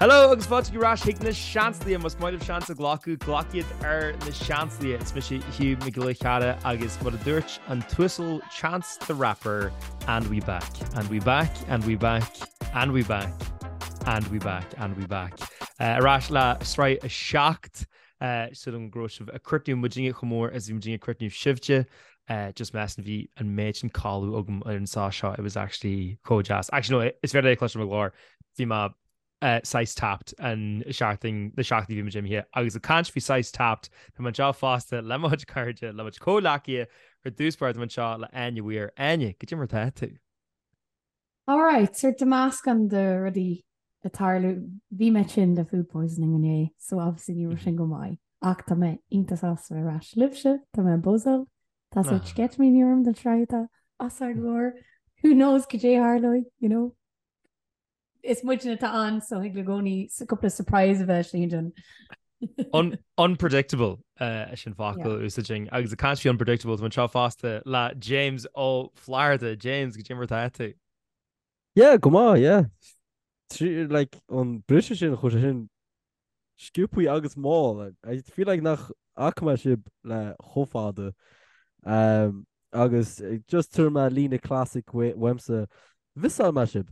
Hello agus fáilte ar ais chuig na Seansálaithe, más maith libh seans a ghlacadh, glac iad ar na Seansálaithe. Is mise Hugh Mac Giolla Cheara agus mar a dúirt an tUasal Chance the Rapper, and we back, and we back, and we back, and we back, and we back, and we back. Ar ais le sraith 7 Súil agam go raibh sibh ag cuartú muidinne chomh mór is a bhí muidinne ag cuartú sibhse. Just measaim bhí an méid sin codladh agam ar an sá seo, it was actually chomh deas. Actually no, is féidir é a chloisteáil i mo ghlór. Bhí mé saghas tapped an seachtain, na seachtainí bhí muid imithe. Agus ag caint faoi saghas tapped, tá mé anseo fosta le mo chuid cairde, le mo chuid comhghleacaithe, ar dtús báire tá mé anseo le Áine Weir. Áine, goidé mar atá tú? Alright, sórt de meascán de rudaí ag tarlú. Bhí mé tinn le food poisoning inné, so obviously ní raibh sin go maith. Ach tá mé iontach sásta bheith ar ais libhse, tá mé buzzing, tá sórt sceitimíní orm don tsraith atá os ár gcomhair. Who knows cad é a tharlóidh, you know? Is muidne atá ann, so thig i gcónaí cúpla surprise a bheith istigh ansin. Unpredictable sin focal a úsáidfinn. Agus ag caint faoi unpredictable, tá mé anseo fosta le James Ó Flatharta. James, goidé mar atá tú? Yeah, go maith, yeah. Like, an briseadh sin, chuaigh sé sin sciobthaí agus mall. I feel like nach fhaca mé sibh le chomh fada. Um, agus just tabharfaidh mé líne classic uaimse, mhissáil mé sibh.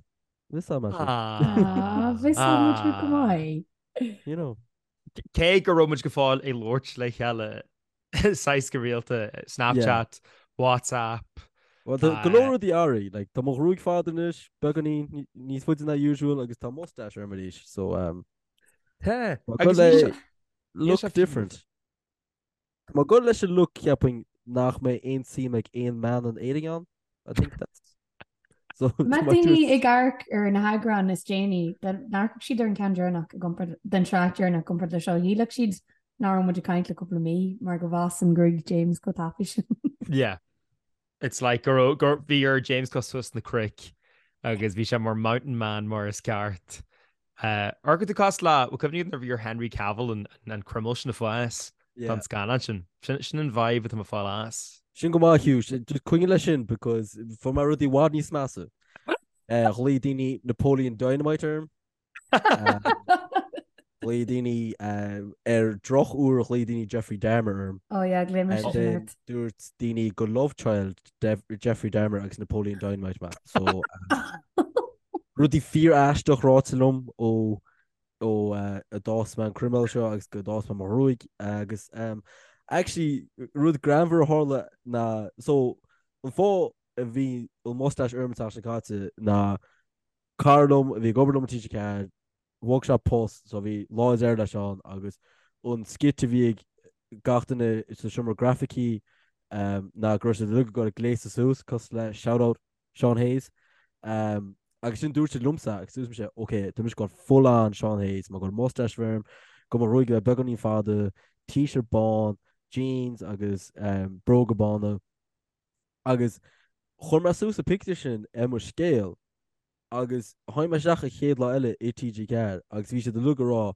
Mhissáil mé sibh. Ah, mhissáil muid thú go maith. You know. Cé go raibh muid go fóill ag labhairt le chéile saghas go rialta, Snapchat, WhatsApp. Well, tá go leor rudaí athraithe, like, tá mo ghruaig fada anois, beagáinín níos faide ná usual agus tá mustache orm arís, so um, Tá, agus níl sé look different. Tá mé ag goil leis an look cheapfainn nach mbeidh aon suim ag aon mbean in Éirinn ann. I think that's So Má daoine ag amharc ar na heagráin is déanaí, dá n-amharcfadh siad ar an ceann deireanach i gcomparáid den tsraith deireanach i gcomparáid le seo, shílfeadh siad nach raibh muid ag caint le cúpla mí mar go bhfásann gruaig James chomh tapaidh sin. Yeah. It's like go raibh gur bhí ar James dul suas na cnoic agus bhí sé mar mountain man mar is ceart. Amharcann tú cosúil le, bhfuil cuimhne agat nuair a bhí ar Henry Cavill an an croiméal sin a fhás don scannán sin. Sin sin an vibe atá mé ag fáil as. Sin go maith Hugh, just coinnigh leis sin because fuair mé rudaí i bhfad níos measa. Ghlaoigh daoine Napoleon Dynamite orm. Ghlaoigh daoine ar drochuair ghlaoigh daoine Jeffrey Dahmer orm. Oh yeah, glaoigh mise sin ort. Dúirt daoine gur love child Jeffrey Dahmer agus Napoleon Dynamite mé. So rudaí fíor-aisteach ráite liom ó ó a d'fhás mé an croiméal seo agus go d'fhás mé mo ghruaig agus actually rud greannmhar a tharla ná so an fáth a bhí an mustache orm an tseachtain seo caite ná Cara liom a bhí ag obair liom i TG4, bhog sé post so bhí lá deiridh leis ann agus an skit a bhí ag gach duine sa seomra grafaicí ná go raibh siad uilig ag dul ag gléasadh suas cosúil le shout out Sean Hayes agus sin dúirt siad liomsa agus dúirt mise ok tá mise ag dul full on Sean Hayes tá mé ag dul mustache a bheith orm, go mo ghruaig a bheith beagáinín fada, t-shirt bán, jeans agus bróga bána. Agus chuir mé suas an pictiúr sin ar mo scéal agus tháinig mé isteach an chéad lá eile i TG4 agus bhí siad uilig ag rá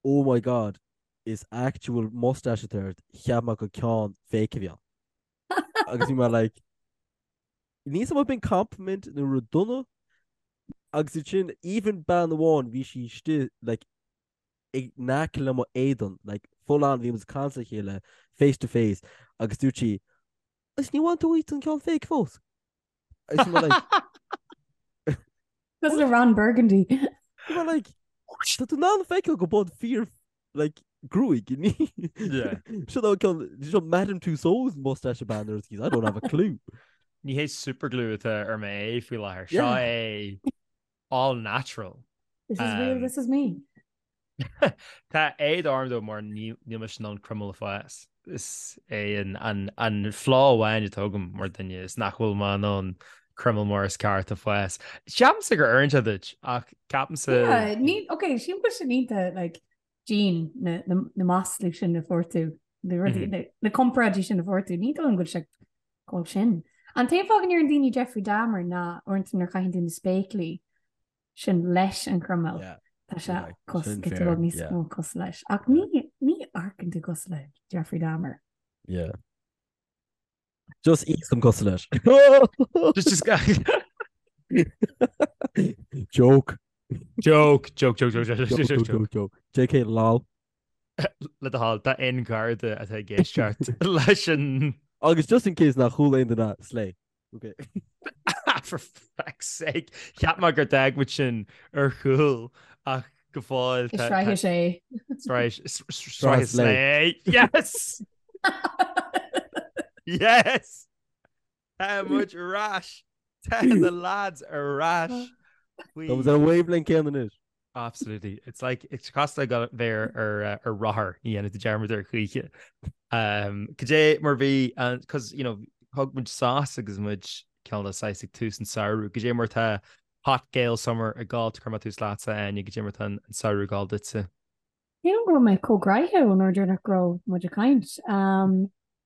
oh my god is actual mustache atá ort, cheap mé gur ceann fake a bhí ann. Agus bhí mé like níl a fhios agam an b'in compliment nó rud dona agus ansin even bean amháin bhí sí istigh like in aice le mo éadan like full on bhí muid ag caint le chéile face to face agus dúirt sí Agus ní bhain tú uait an ceann fake fós. Agus bhí mé like Cosúil le Ron Burgundy. Bhí mé like Tá tú in ann feiceáil go bud fíor like gruaig ní. Yeah. Seo an ceann seo Madame Tussauds mustache a bhean ar I don't have a clue. Ní hé superglue atá ar m'aghaidh faoi láthair. Seo é all natural. This is real, this is me. Tá éad orm dó mar níl mise in ann croiméal a fhás. Is é an flaw amháin atá agam mar duine is nach bhfuil mé in ann croiméal mar is ceart a fhás. Ceapaimse gur oireann sé duit ach ceapaimse. Yeah, ní, ok, sílim go bhfuil sin iontach like Jean na, na, na maslaí sin a fuair tú, na rudaí, na, na comparáidí sin a fuair tú, ní dóigh liom go bhfuil sé go sin. An t-aon fáth go ndeireann daoine Jeffrey Dahmer ná uaireanta nuair a chaitheann tú na spéaclaí sin leis an chroiméal. Yeah. Tá sé Yeah, cos sin go fair, bhfuil níos yeah. mó cosúil leis. Ach ní ní amharcann tú cosúil le Jeffrey Dahmer. Yeah. Just íosam cosúil leis. Just just Joke. Joke, joke, joke, joke, joke, joke, joke, joke, joke. JK lol. Le do thoil, tá aon gharda atá ag éisteacht leis an. Agus just in case nach chuala aon duine, slay. Okay. For fuck's sake. Cheap mé gur d'fhág muid sin ar chúl ach go fóill. Is sraith sé. Sraith sraith slay. Yes! Yes! Tá muid ar ais! Tá na lads ar ais! Tá muid ar an wavelength céanna anois. Absolutely. It's like, it's cosúil le bheith ar ar rothar, ní dhéanfaidh tú dearmad air choíche. Um, cad é mar bhí, cos, you know, thug muid sos agus muid cineál de saghas ag tús an samhradh. Cad é mar tá Hot Gael Summer ag gabháil, cuirfidh mé tús leatsa, Áine, cad é mar tá an samhradh ag gabháil duitse? Sílim go raibh mé chomh gnoitheach ón uair deireanach go raibh muid ag caint.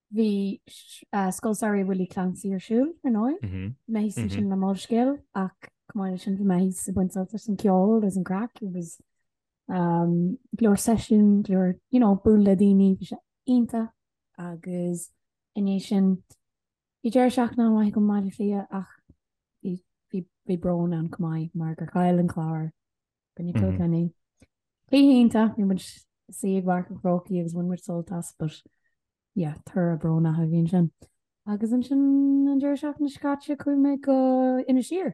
Bhí Scoil Samhraidh Willie Clancy ar siúl, ar ndóigh. Bhí mé thíos ansin le Molscéal ach chomh maith leis sin bhí mé thíos ag baint sult as an ceol agus an craic agus go leor seisiún, go leor, you know, bualadh le daoine, bhí sé iontach agus i ndiaidh sin bhí deireadh seachtaine an-mhaith agam i mBaile Átha Cliath ach bhí, bhí, bhí brón ann chomh maith mar gur chaill an Clár i gcoinne Kilkenny. Cluiche iontach, bhí muid suí ag Páirc an Chrócaigh agus bhain muid sult as, but yeah, toradh brónach a bhí ansin. Agus ansin an deireadh seachtaine seo caite chuaigh mé go Inis Oírr.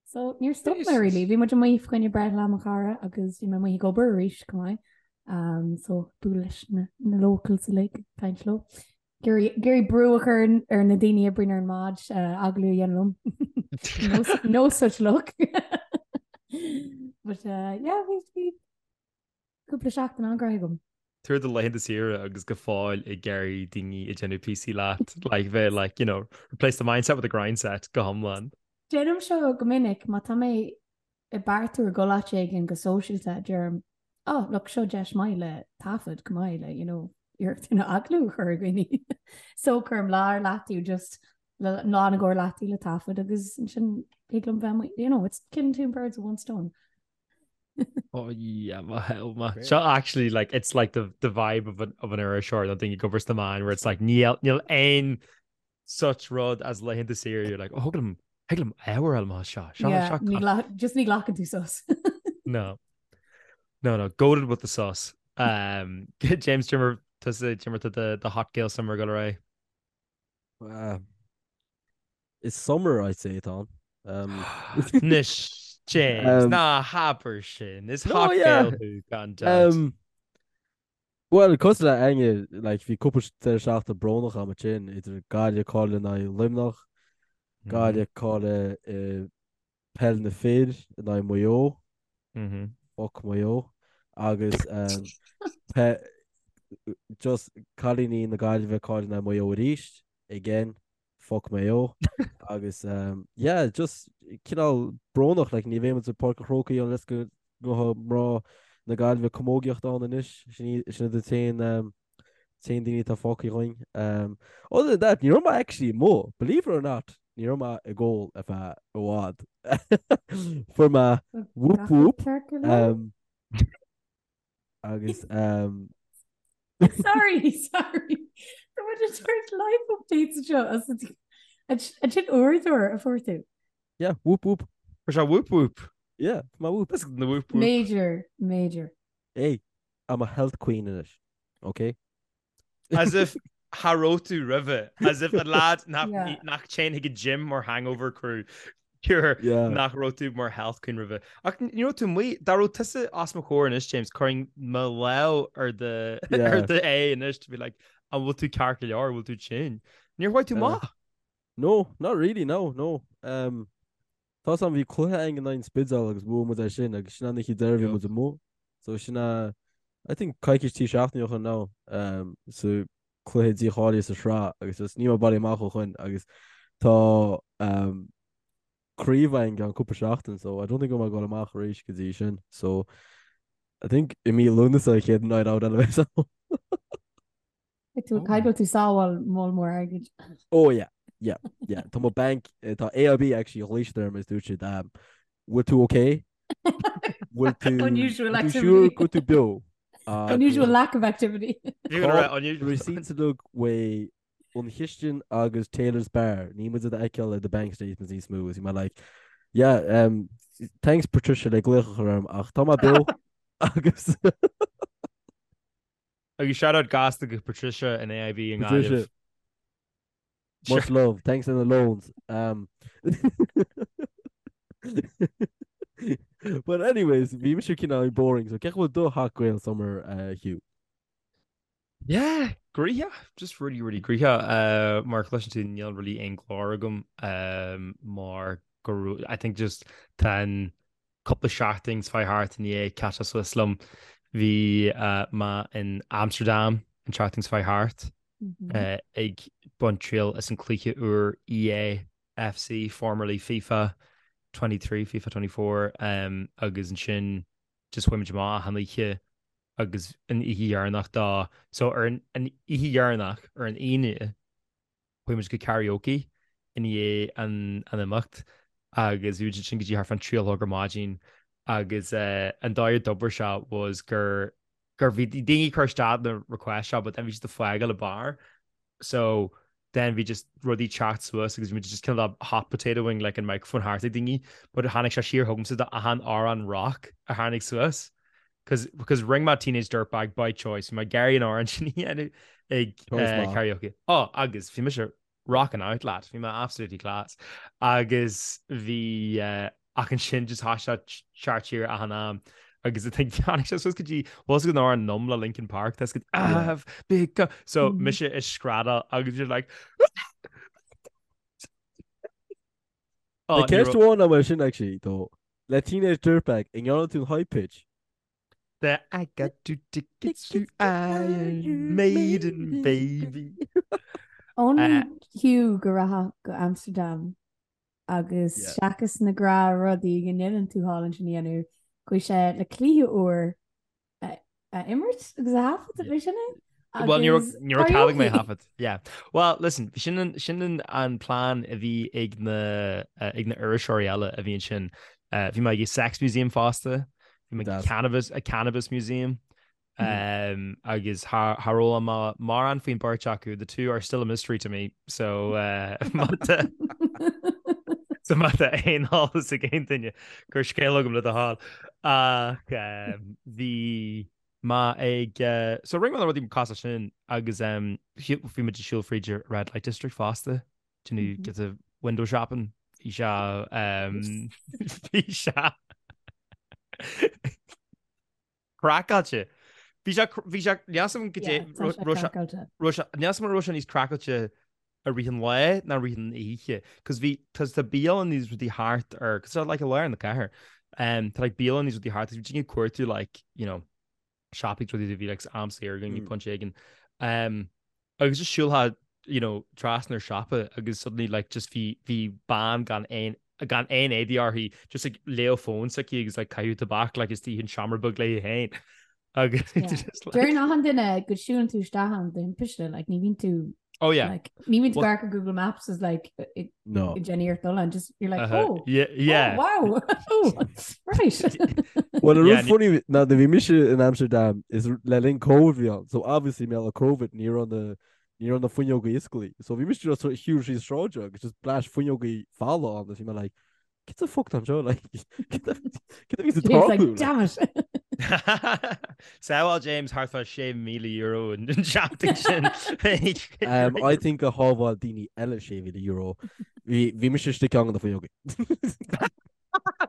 So níor stop mé really, bhí muid amuigh fá choinne breithlá mo chara agus bhí mé amuigh ag obair arís chomh maith. Um, so bualadh leis na, na locals uilig, caint leo. Ag iarraidh brú a chur ar na daoine a oibríonn ar an mbád agallamh a dhéanamh liom. No such luck. But uh, yeah, bhí bhí cúpla seachtain an-ghnoitheach agam. Tú ar do laethanta saoire agus go fóill ag iarraidh daoine ag déanamh píosaí leat, like bheith like, you know, replace the mindset with the grindset go hiomlán. Déanaim seo go minic má tá mé ag beartú ar dhul áit éigin go sóisialta, deirim, oh, look, seo deis maith le taifead go maith le, you know, iarracht na agallamh a chur ar dhaoine. So cuirim lá ar leataobh just le lá na gcóir leataobh le taifead agus ansin thig liom bheith, you know, it's killing two birds with one stone. Oh yeah, my hell ma. Seo actually like it's like the the vibe of an of an iriseoir nó duine ag obair sna meáin where it's like níl níl aon such rud as laethanta saoire you're like oh thig liom thig liom ábhar eile má seo seo Yeah, seo ní gla- just ní ghlacann tú sos. No. No, no, goated with the sos. Um, James Jimmer tusa Jimmer to the, the hot Gael summer go ré. Uh, it's summer I'd say atá. Um, Anois James, um, ná habair sin. Is no, hot yeah. Gael thú gan dabht. Um, Bhuel, cosúil le Áine, like, bhí cúpla deireadh seachtaine brónach agam ansin, idir Gaillimh ag cailleadh in aghaidh Luimneach, Gaillimh ag cailleadh i peil na fir in aghaidh Maigh Eo, fuck Maigh Eo, agus pe just cailíní na Gaillimhe ag cailleadh in aghaidh Maigh Eo arís, again. fuck Maigh Eo agus yeah just cineál brónach like ní bheidh muid i Páirc an Chrócaigh unless go ngabhfaidh mná na Gaillimhe camógaíocht ann anois sin iad an t-aon t-aon daoine atá fágtha againn. Um, other than that ní raibh mé actually amuigh believe it or not ní raibh mé ag ól ar feadh i bhfad. Fuair mé whoop whoop um, Agus um... Sorry, sorry. Tá muid ag tabhairt life updates seo as an sin uaireadóir a fuair tú. Yeah, whoop whoop. Fuair sé whoop whoop. Yeah, má whoop. That's the whoop whoop. Major, major. Hey, I'm a health queen anois. Okay? As if cha raibh tú roimhe, as if an lad nach dtéann chuig an gym mar hangover crew cure nach raibh tú mar health queen roimhe. Ach ní raibh tú amuigh, dá raibh tusa os mo chomhair anois, James, chuirfinn mo lámh ar do ar do aghaidh anois to be like, an bhfuil tú ceart go leor, an bhfuil tú tinn? Níor chuaigh tú amach? No, not really, no, no. Um, Tá 's a'm bhí cluiche againn in aghaidh an Spidéal agus bhuaigh muid é sin agus sin an oíche deiridh bhí muid amuigh. So sin a I think coicís trí seachtaine ó shin now um, sa cluiche dícháilithe sa sraith agus just níl mé bailithe amach ó shin agus tá um, craobh againn i gceann cúpla seachtain so I don't think go mbeidh mé ag dul amach arís go dtí sin. So I think i mí Lúnasa an chéad night out eile a bheas ann. Tú caithfidh go bhfuil tú ag sábháil moll mór airgid. Oh yeah, yeah, yeah. Tá mo bank, tá AIB actually ghlaoigh siad orm agus dúirt siad, um, bhfuil tú okay? Bhfuil tú Unusual bhfuil tú activity. sure go bhfuil tú beo? Unusual lack of activity. You're gonna write unusual. Receipts uilig uaidh an chistin agus Taylor's Bar. Níl muid ag feiceáil ar do bank statements níos mó. Is mé like, Yeah, um, thanks Patricia le glaoch a chur orm ach tá mé beo agus Agus shout out gasta go Patricia in AIB i nGaillimh. Patricia, much love, thanks in the loans. Um, But anyways, bhí mise cineál boring, so cén chaoi a bhfuil do Hot Gael Summer, uh, Hugh? Yeah, gnoitheach, just really, really gnoitheach. Uh, mar chloiseann tú níl really aon chlár agam um, mar go raibh- I think just tá an cúpla seachtain seo thart i ndiaidh catch suas liom. Bhí uh, mé in Amsterdam an tseachtain seo thart uh, ag baint triail as an cluiche úr EA FC, formerly FIFA 23, FIFA 24, um, agus ansin just chuaigh muid amach achan oíche agus an oíche dheireanach dá so ar an an oíche dheireanach ar an Aoine chuaigh muid go karaoke i ndiaidh an an imeacht agus bhí muid ansin go dtí thart fán 3 a chlog ar maidin agus eh, an dóigh a d'oibir sé was gur gur bhí daoine ag cur isteach na request seo but then bhí siad ag fágáil an bar so then bhí just rudaí teacht suas agus bhí muid just cineál hot potatoing like an microphone thart ag daoine but tháinig sé siar chugamsa do achan amhrán rock a tháinig suas cause because rinne mé Teenage Dirtbag by choice bhí mé ag iarraidh an amhrán sin a dhéanamh ag uh, karaoke oh agus bhí mise rocking out lad bhí mé absolutely class agus bhí uh, Ach ansin just thosaigh sé teacht siar achan am agus I think tháinig sé suas go dtí bhfuil fhios agat an amhrán Numb le Linkin Park tá go I've become so mise ag screadaíl agus you're like Oh, ní ceist amháin agam sin actually though. Le Teenage Dirtbag, an ndearna tú an high pitch? The I got two tickets to Iron Maiden baby. Only Hugh go rachadh go Amsterdam Agus seachas na gnáthrudaí go ndéanann tú thall ansin a dhéanamh, chuaigh sé le cluiche úr a imirt agus a thaifead, ab é sin é? Well, ní raibh cead agam é a thaifead. Yeah. Well, listen, sin sin an plean a bhí ag na ag na iriseoirí eile a bhí ansin. Bhí mé ag Sex Museum fosta, bhí mé ag Cannabis, a Cannabis Museum. Um, agus char fhoghlaim mé mórán faoin beirt acu, the two are still a mystery to me, so uh, so má tá aon eolas ag aon duine cuir scéal chugam le do thoil. Ach um, bhí mé ag uh, so rinne mé na rudaí cosúil sin agus um, bhí muid ag siúl fríd an Red Light District fosta, do you know, get the window shopping, bhí sé um, bhí sé Craiceáilte. Bhí sé, bhí sé, níl a fhios agam goidé, raibh sé, raibh sé, níl a fhios agam an raibh sé níos craiceáilte i rith an lae ná i rith an oíche. Cos bhí, cos tá bialanna is rudaí thart ar, cos tá like i lár na cathair, um, tá like bialanna is rudaí thart, agus bhí daoine ag cuartú like, you know, siopaí is rudaí bhí like am saor againn, mm. pointe éigin. Um, Agus just siúlfá you know trasna ar siopa agus suddenly like just bhí bhí bean gan aon gan aon éadaí uirthi just ag léamh fón s'aici agus like caitheamh tobac like istigh in seomra beag léi féin agus Yeah. just like Deireann achan duine go siúlann tú isteach ann de thimpiste, like ní bhíonn tú Oh yeah. like ní bhíonn tú Well- ag amharc ar Google Maps is like ag No. ag déanamh iarracht dul ann, just you're like Uh-huh. oh Yeah, yeah. oh wow oh right Well, an Yeah, rud ní- funny ná nuair bhí mise in Amsterdam is le linn Covid bhí ann, so obviously mar gheall ar Covid ní raibh na ní raibh na fuinneogaí oscailte. So bhí mise just ag siúl síos sráide agus just bleaist fuinneogaí folamh ann agus bhí mé like cad the fuck tá anseo like cad a bhí sa James like tarlú? damn it Sábháil James thart fá €6,000 an tseachtain sin. Um, I think a shábháil daoine eile €6,000. Bhí bhí mise istigh ceann de na fuinneogaí.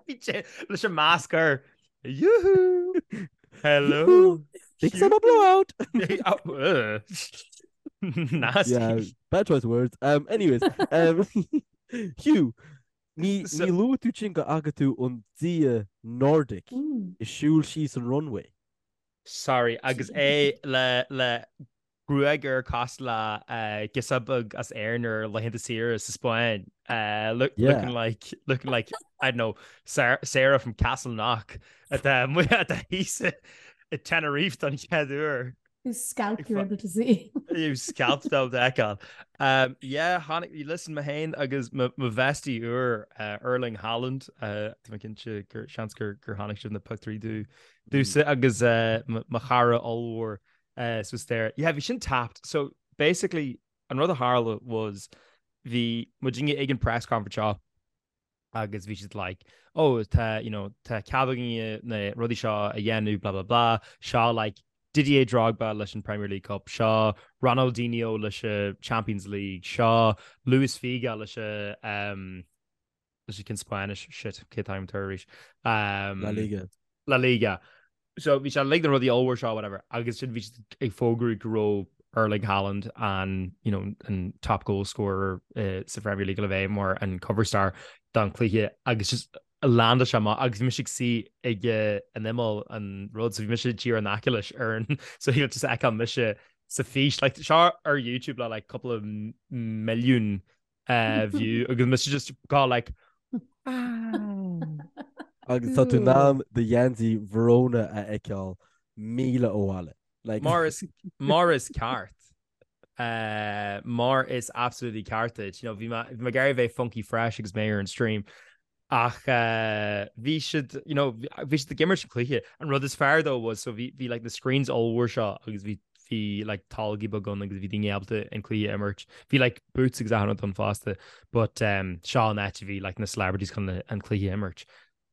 Bhí sé leis an masc air. Yoo-hoo! Hello! Big summer blowout! Oh, ugh. Nasty. Yeah, bad choice of words. Um, anyways, um, Hugh, ní So- ní luaigh tú sin go bhfaca tú an dia Nordic Mm. ag siúl síos an runway. Sorry, agus é le le gruaig air cosúil le girseach beag as Éirinn ar laethanta saoire sa Spáinn. Look, Yeah. looking like looking like I don't know Sarah, Sarah from Castleknock atá atá thíos i Tenerife don chéad uair. Whose scalp Ag you're fa- able to see. Whose scalp tá le feiceáil. Um, yeah, tháinig, listen, mé féin agus mo mo bhestie úr uh, Erling Haaland, uh, tá mé cinnte gur seans gur gur tháinig sibh na pictiúirí dú dúsa agus uh, mo mo chara ollmhór suas there. Yeah, bhí sin tapped. So basically, an rud a tharla was bhí muidinne ag an press conference seo. Agus bhí siad like, oh, tá, you know, tá cead againne na rudaí seo a dhéanamh, blah, blah, blah. Seo like Didier Drogba leis an Premier League Cup, seo Ronaldinho leis an Champions League, seo Luis Figo leis an, um, leis an cinn Spáinnis, shit, cé táim tar arís. Um, La Liga. La Liga. So bhí sé like na rudaí ollmhór seo whatever agus sin bhí siad ag fógrú go raibh Erling Haaland an you know, an top goal scorer uh, sa Premier League le bheith mar an cover star don cluiche agus just landáil sé amach agus bhí mise ag suí ag eh, an imeall an rud so bhí mise díreach in aice leis ar an so he just fheiceáil mise sa fís like seo ar YouTube le like couple of milliún uh, view agus mise just go like Agus tá tú in ann do gheansaí Verona a fheiceáil míle ó bhaile. Like... Mar is mar is ceart. Uh, mar is absolutely ceart duit. You know, bhí mé bhí mé ag iarraidh bheith funky fresh agus mé ar an stream. Ach uh, bhí siad, you know, bhí siad ag imirt an cluiche. An rud is fearr though was so bhí bhí like na screens ollmhór seo agus bhí bhí like tolgaí beag ann agus bhí daoine ábalta an cluiche a imirt. Bhí like booths agus achan rud ann fosta but um, seo an áit a bhí like na celebrities chun an cluiche a imirt.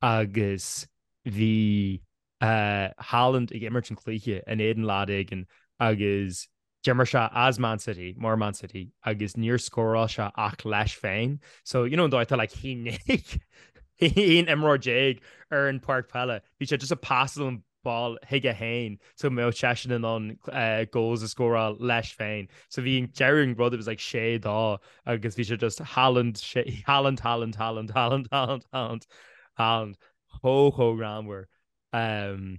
Agus bhí uh, Haaland ag imirt an cluiche in éadan lad éigin agus d'imir sé as Man City, mar Man City, agus níor scóráil sé ach leis féin. So, you know, an dóigh tá like haon imreoir déag ar an páirc peile. Bhí sé just ag pasáil an ball chuige féin so go mbeadh seisean in ann goals a scóráil leis féin. So bhí an deireadh an rud it was like sé dó agus bhí sé just Haaland Haaland Haaland Haaland Haaland Haaland Haaland Haaland chomh chomh greannmhar. Um,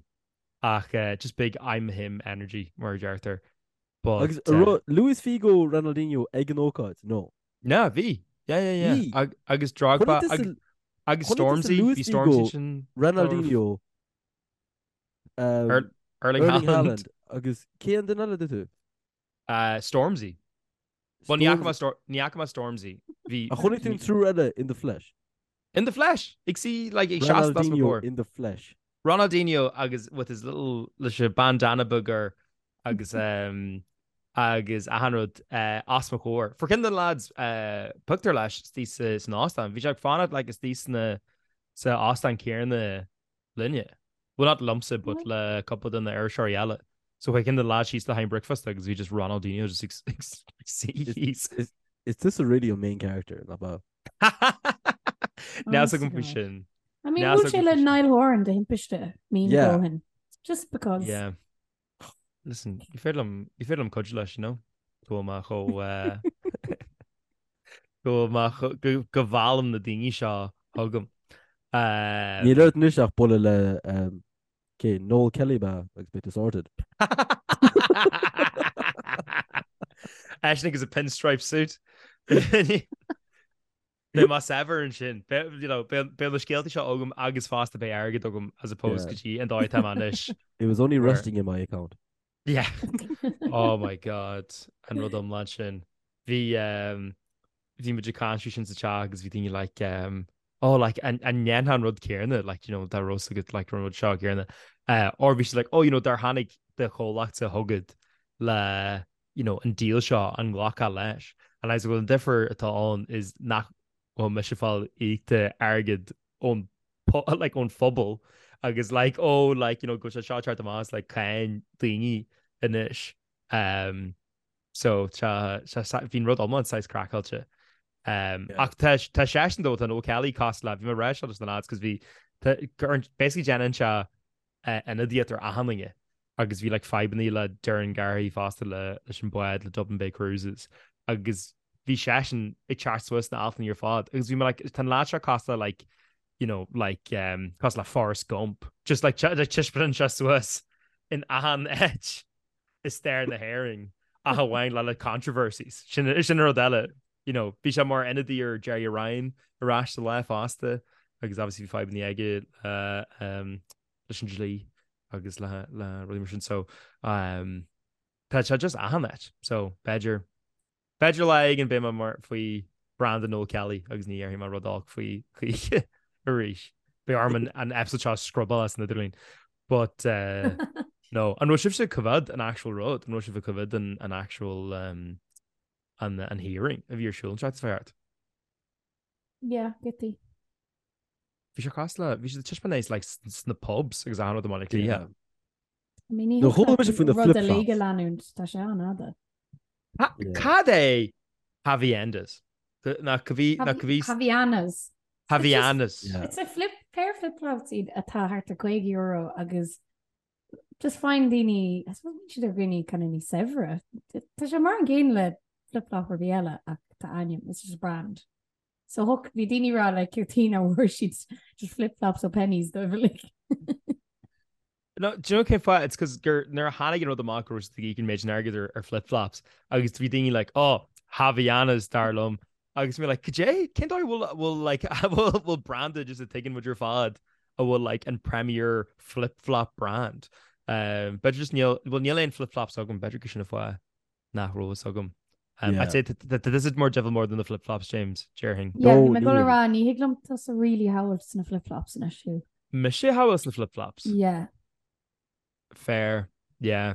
ach uh, just big I'm him energy mar a deirtear. But, Agus uh, Luis Figo Ronaldinho ag an ócáid? No. No, bhí. Yeah, yeah, yeah. Bhí. Agus Drogba agus Stormzy, bhí Stormzy sin. Ronaldinho Um, Erling Haaland. Agus cé an duine eile dúirt tú? Uh, Stormzy. Well, ní fhaca mé Stormzy. Bhí. A chonaic tú an triúr eile in the flesh? In the flesh! Ag suí like ag seasamh os mo chomhair. in the flesh. Ronaldinho agus with his little leis an bandana beag air agus um, agus achan rud uh, os mo chomhair. Fuair ceann de na lads uh, pictiúr leis istigh sa, san óstán. Bhí sé ag fanacht like istigh sna sa óstán céanna linne. Well not liomsa but le cúpla de na iriseoirí eile. So chuaigh ceann de na lads síos le haghaidh bricfeasta agus bhí just Ronaldinho just ag suí thíos. Is is tusa really an main character, nach ea? Níl a fhios agam faoi sin. I mean, bhuail sé le Niall Horan de thimpiste mí Yeah. ó shin. Just because. Yeah. Listen, ní féidir liom, ní féidir liom cuidiú leis, you know? Go bhfuil mé chomh, eh, go bhfuil mé chomh, go, go bhfeallaim na daoine seo chugam. Um, Níl ort anois ach bualadh le um, cé, Noel Kelly ba agus beidh tú sorted. Eisean agus a pinstripe suit. Beidh mé saibhir ansin. You know, beidh na scéalta seo agam agus fosta beidh airgead agam as opposed go dtí an dóigh atá mé anois. It was only resting in my account. Yeah. Oh my God. An rud iomlán sin. Bhí um, bhí muid ag caint faoi sin sa teach agus bhí daoine like um, oh like an an ndéanfá an rud céanna like you know dá raibh a fhios agat like an rud seo céanna. Uh, or bhí siad like oh you know dár tháinig do chomhlachta chugat le you know, an deal seo, an nglacfá leis? And I was like, well, an difear atá ann is nach bhfuil mise ag fáil íocta airgead ón like ón phobal agus like oh like you know go bhfuil sé seo ag teacht amach as like cáin daoine anois. Um, so tá bhí an rud iomlán saghas craiceáilte. Um, yeah. Ach tá tá seisean though tá Noel Kelly cosúil le bhí mé ag rá seo leis na lads cos bhí basically déanann sé ionadaíocht ar achan duine agus bhí like fadhbanna le Doireann Garrihy fosta le leis an bád le Dublin Bay Cruises agus bhí seisean ag teacht suas sna altanna ar fad agus bhí mé like tá an lad seo cosúil le like you know like um, cosúil le Forrest Gump just like like taispeánann sé suas in achan áit i stair na hÉireann ach amháin le le controversies sin sin rud eile you know bhí sé mar ionadaí ar Gerry Ryan ar ais sa lá fosta agus obviously bhí fadhbanna aige le um, leis an dlí agus le le rudaí mar sin so um, tá sé just achan áit so b'fhéidir b'fhéidir lá éigin beidh mé mar faoi branda Noel Kelly agus ní dhéarfaidh mé rud olc faoi choíche arís. Beidh orm an, an episode seo a scrubáil as an idirlíon. But uh, no, an raibh sibhse ag coimhéad an actual rud, an raibh sibh ag coimhéad an, an actual um, an, an hearing a bhí ar siúl an tseachtain seo thart? Yeah, giotaí. Bhí sé cosúil le, bhí siad ag taispeáint é like sna pubs agus achan rud i mBaile Átha Cliath. I mean, ní No, chuala mise faoi na rud flip-flops. uilig a leanúint, tá sé an-fhada. Cad é Havaianas? Nach bhí, nach bhí. Havaianas. Havaianas. It's a flip, pair of flip-flops iad atá thart ar €50 agus just faigheann daoine, I suppose bíonn siad ar dhaoine kind of níos saibhre. Tá sé mar an gcéanna le flip-flop ar bith eile ach tá ainm, it's just a brand. So thug, bhí daoine ag rá like céard chuige nach bhfuair siad just flip-flops ó Penneys dóibh uilig. No, do you know cén fáth? It's 'cause gur nuair a tháinig an rud amach go raibh siad ag íoc an méid sin airgid ar, ar flip-flops agus bhí daoine like, oh, Havaianas dar liom. Agus mé like, cad é? Cén dóigh bhfuil, bhfuil like, bhfuil, bhfuil branda just a tuigeann muid ar fad a bhfuil like an premier flip-flop brand. Um, b'fhéidir just níl, well níl aon flip-flops agam, b'fhéidir gur sin an fáth. nach raibh fhios agam. Um, Yeah. I'd say that this is more devil more than the flip-flops, James, déarfainn. Yeah, No, bhí mé ag dul a níl. rá ní thig liom tusa really a shamhailt sna flip-flops anois Hugh. Mise a shamhailt sna flip-flops. Yeah. Fair. Yeah.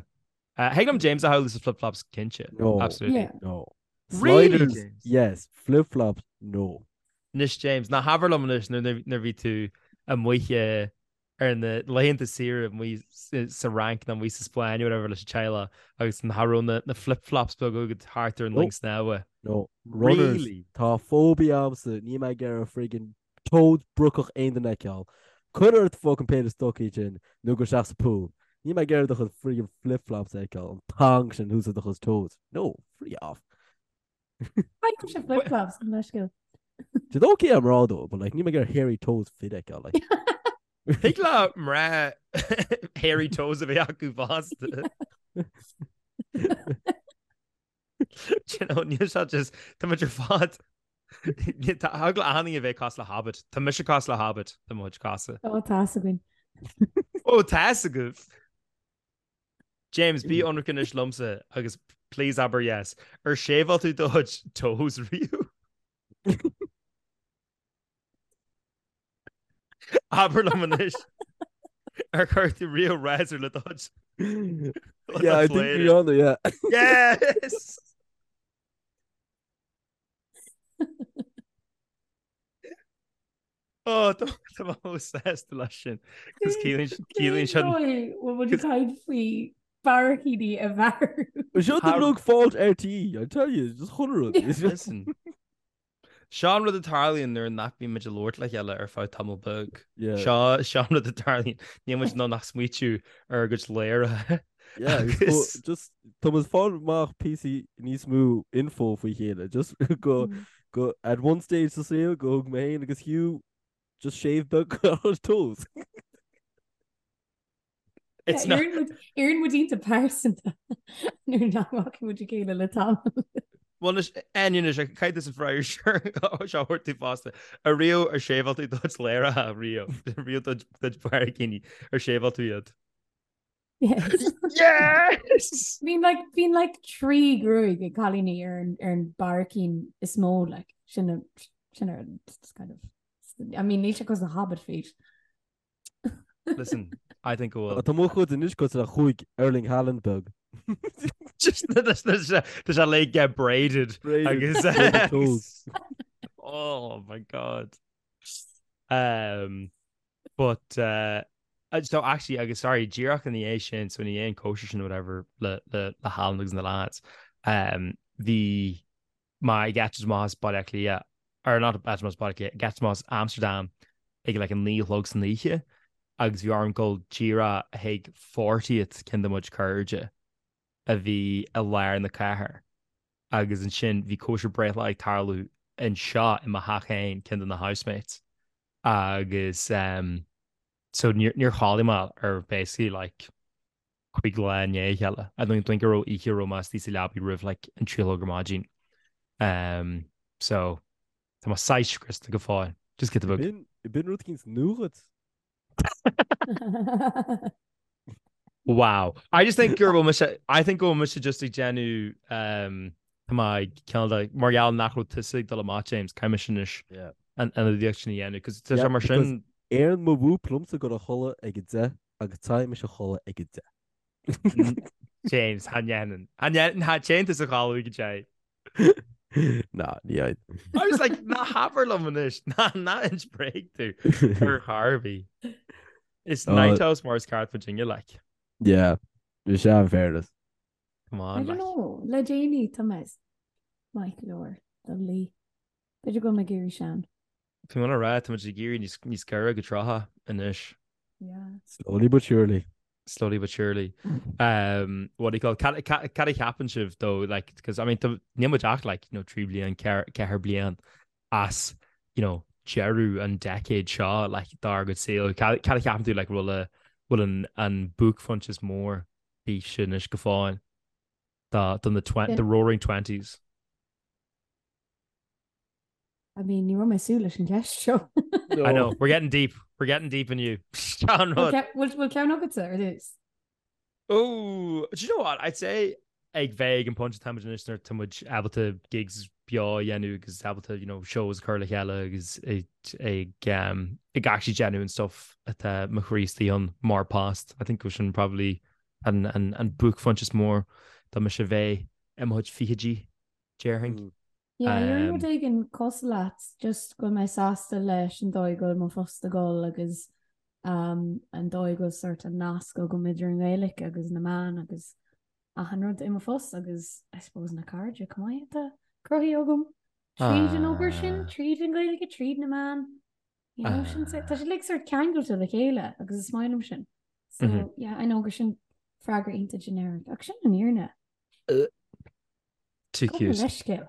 Uh, thig liom James a shamhailt sna flip-flops cinnte. No. Absolutely. Yeah. No. Really, Sliders, James? yes. Flip-flops, no. Anois James, ná habair liom anois nuair nuair bhí tú amuigh eh, ar na laethanta saoire amuigh sa Fhrainc nó amuigh sa Spáinn or whatever leis an teaghlach agus nach raibh na na flip-flops beaga agat thart ar an linn snámha. No. Runners. Really? Tá phobia agamsa, níl mé ag iarraidh friggin toes brocach aon duine a fheiceáil. Cuir ort fucking péire stocaí sin nó gabh isteach sa pool. Níl mé ag iarraidh do chuid friggin flip-flops a fheiceáil, an tang sin thuas ar do chuid toes. No, free off. Faighim sé flip-flops an leithscéal. Did okay am rá dó, but like níl mé ag iarraidh hairy toes fir a fheiceáil like. Thig le mná hairy toes a bheith acu fosta. Do you know, níl sé just tá muid ar fad Tá eagla a'inn a bheith cosúil le hobbit. Tá mise cosúil le hobbit le mo chuid cosa. Ó tá fhios againn. Ó tá fhios agaibh. James, bí ionraic anois liomsa agus please abair yes. Ar shave-áil tú do chuid toes riamh? Abair liom anois. Ar chuir tú riamh razor le do chuid? Yeah, I think we on yeah. Yes! Ó, tá mé chomh sásta leis sin. Cos ciallaíonn sin. Bhfuil muid ag caint faoi barraicíní a bhearú. Seo the rug fault RTÉ, I tell you, just chuile rud. Listen. Seo an rud a tarlaíonn nuair nach mbíonn muid ag labhairt le chéile ar feadh tamall beag. Seo seo an rud a tarlaíonn. Níl muid in ann ach smaoitiú ar ár gcuid léirithe. Yeah, just tá muid ag fáil amach píosaí níos mó info faoi chéile, just go go at one stage sa saol go thug mé féin agus Hugh just shave beag ar toes. It's not... Éiríonn muid iontach pearsanta nuair nach bhfaca muid a chéile le tamall. Bhuel anois, Áine anois, caithfidh tusa freagra seo a thabhairt tú fosta. Ariamh ar shave-áil tú do chuid ladhracha riamh, riamh do chuid barraicíní, ar shave-áil tú iad. Yes! Yes! Bíonn like, bíonn like 3 gruaig ag cailíní ar an, ar an barraicín is mó like, sin a, sin ar just kind of, I mean níl sé cosúil le hobbit feet. Listen, I think go bhfuil. Tá mo chuid anois cosúil le chúig Erling Haaland beag. Just tá sé le get braided. Braided. Agus Braided toes. Oh my God. Um, But uh, so actually agus sorry díreach ina dhiaidh sin so ina dhiaidh an cóisir sin whatever le le le Haaland agus na lads um, bhí mé ag eitilt amach as Baile Átha Cliath or not eitilt amach as Baile Átha Cliath ag eitilt amach as Amsterdam ag like an 9 a chlog san oíche agus bhí orm dul díreach chuig 40th ceann de mo chuid cairde a bhí i lár na cathair agus ansin bhí cóisir breithlá ag tarlú anseo i mo theach féin ceann de na housemates agus um, so níor níor chodlaigh mé ar basically like chuig lá i ndiaidh a chéile. I don't think go raibh oíche a raibh mé istigh sa leabaidh roimh like an 3 a chlog ar maidin. Um, so tá mé saghas scriosta go fóill. Just giota beag. B'in b'in rud eicínt nua dhuit. Wow. I just think gur bhfuil mise I think go bhfuil mise just ag déanamh um, tá mé ag cineál de mar gheall nach raibh tusa ag dul amach James, caithfidh mise anois Yeah. an ionadaíocht sin a dhéanamh, cos tá Yeah, sé mar because sin Éiríonn mo whoop liomsa dul a chodladh ag a 10 agus téann mise a chodladh ag a 10. James, cha ndéanann. Cha ndéanann, cha téann tusa a chodladh ag a 10. Ná, ní fhaigheann. I was like, ná habair liom anois, ná ná inis bréag tú ar chor ar bith. Is night house mar is ceart muidinne, like. Yeah, bhí sé in fairness. Come on, I don't know, le déanaí tá mé maith go leor do luí. B'fhéidir go bhfuil mé ag éirí sean. Tá mé ag rá, tá muid ag éirí níos níos gaire go 30 anois. Yeah. Slowly but surely. Slowly but surely. Um, what do you call it? Cad cad a cheapann sibh though, like, because I mean, níl muid ach like, you know, 3 bliain, 4 bliain as, you know, deireadh an decade seo, like, dár gcuid saoil. Cad cad a cheapann tú, like, bhfuil a bhfuil an an buaicphointe is mór daoibhse anois go fóill do do na the roaring twenties? I mean, ní raibh mé ag súil leis an gceist seo. I know, we're getting deep. We're getting deep in you. Sean rud. Bhfuil ceann agatsa ar dtús? Oh, do you know what? I'd say ag bheith ag an pointe atá muid anois nuair tá muid ábalta gigs beo a dhéanamh agus ábalta, you know, shows a chur le chéile agus ag ag um, ag actually déanamh an stuff atá mo chroí istigh ann mar post. I think go sin probably an, an, an buaicphointe is mór dá mise bheith i mo chuid fichidí, déarfainn. Yeah, déarfainn rud éigin cosúil leat, just go bhfuil mé sásta leis an dóigh go bhfuil mo phost ag dul agus um, an dóigh go bhfuil sort an nasc agam idir an Ghaeilge agus na meáin agus achan rud i mo phost agus I suppose na cairde chomh maith atá cruthaithe agam tríd an obair sin, tríd an Ghaeilge, tríd na meáin. You know, sin, tá sé like sort ceangailte le chéile agus is maith liom sin. So, mm -hmm. yeah, I know gur sin freagra iontach generic ach sin an fhírinne. Too cute. Leithscéal.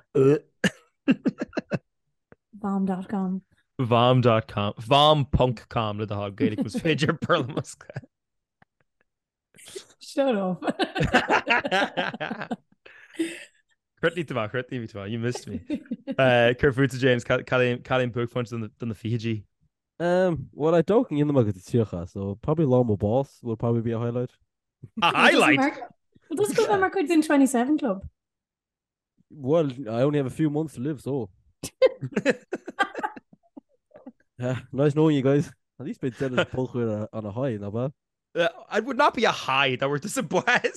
Vom.com. Vom.com. Vom.com le do thoil Gaeilge más féidir Béarla. Shut up. Chríochnaigh tú maith, chríochnaigh tú maith, you missed me. Uh, Céard fútsa James, cad é an buaicphointe do na fichidí? Um, well, I don't think go dtí so probably lá mo bás will probably be a highlight. A highlight? Well, does go mar chuid den 27 Club. Well, I only have a few months to live, so. yeah, nice knowing you guys. At least beidh Dennis podchraoladh on a high, nach bad. Uh, I would not be a high that were disappointed.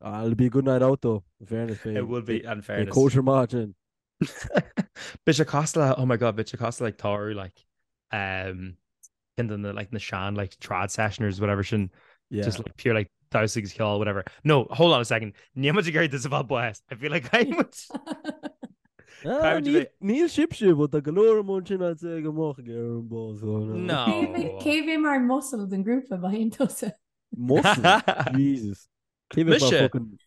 Uh, it'll be a good night out though. In fairness, it will be. In fairness, kosher margin. Beidh sé cosúil le, oh my god, beidh sé cosúil le like tárú like um ceann de na like na sean like trad sessioners whatever sin yeah. just like pure like damhsa agus ceol whatever. No, hold on a second. Níl muid ag iarraidh tusa a fháil bás. I feel like I would Ah, Níl sibhse, but tá go leor amuigh ansin I'd say go mbeadh ag iarraidh an bás. No. Cé bheidh mar muscle den grúpa má théann tusa? Muscle? Jesus. Cé bheidh mar Mise. fucking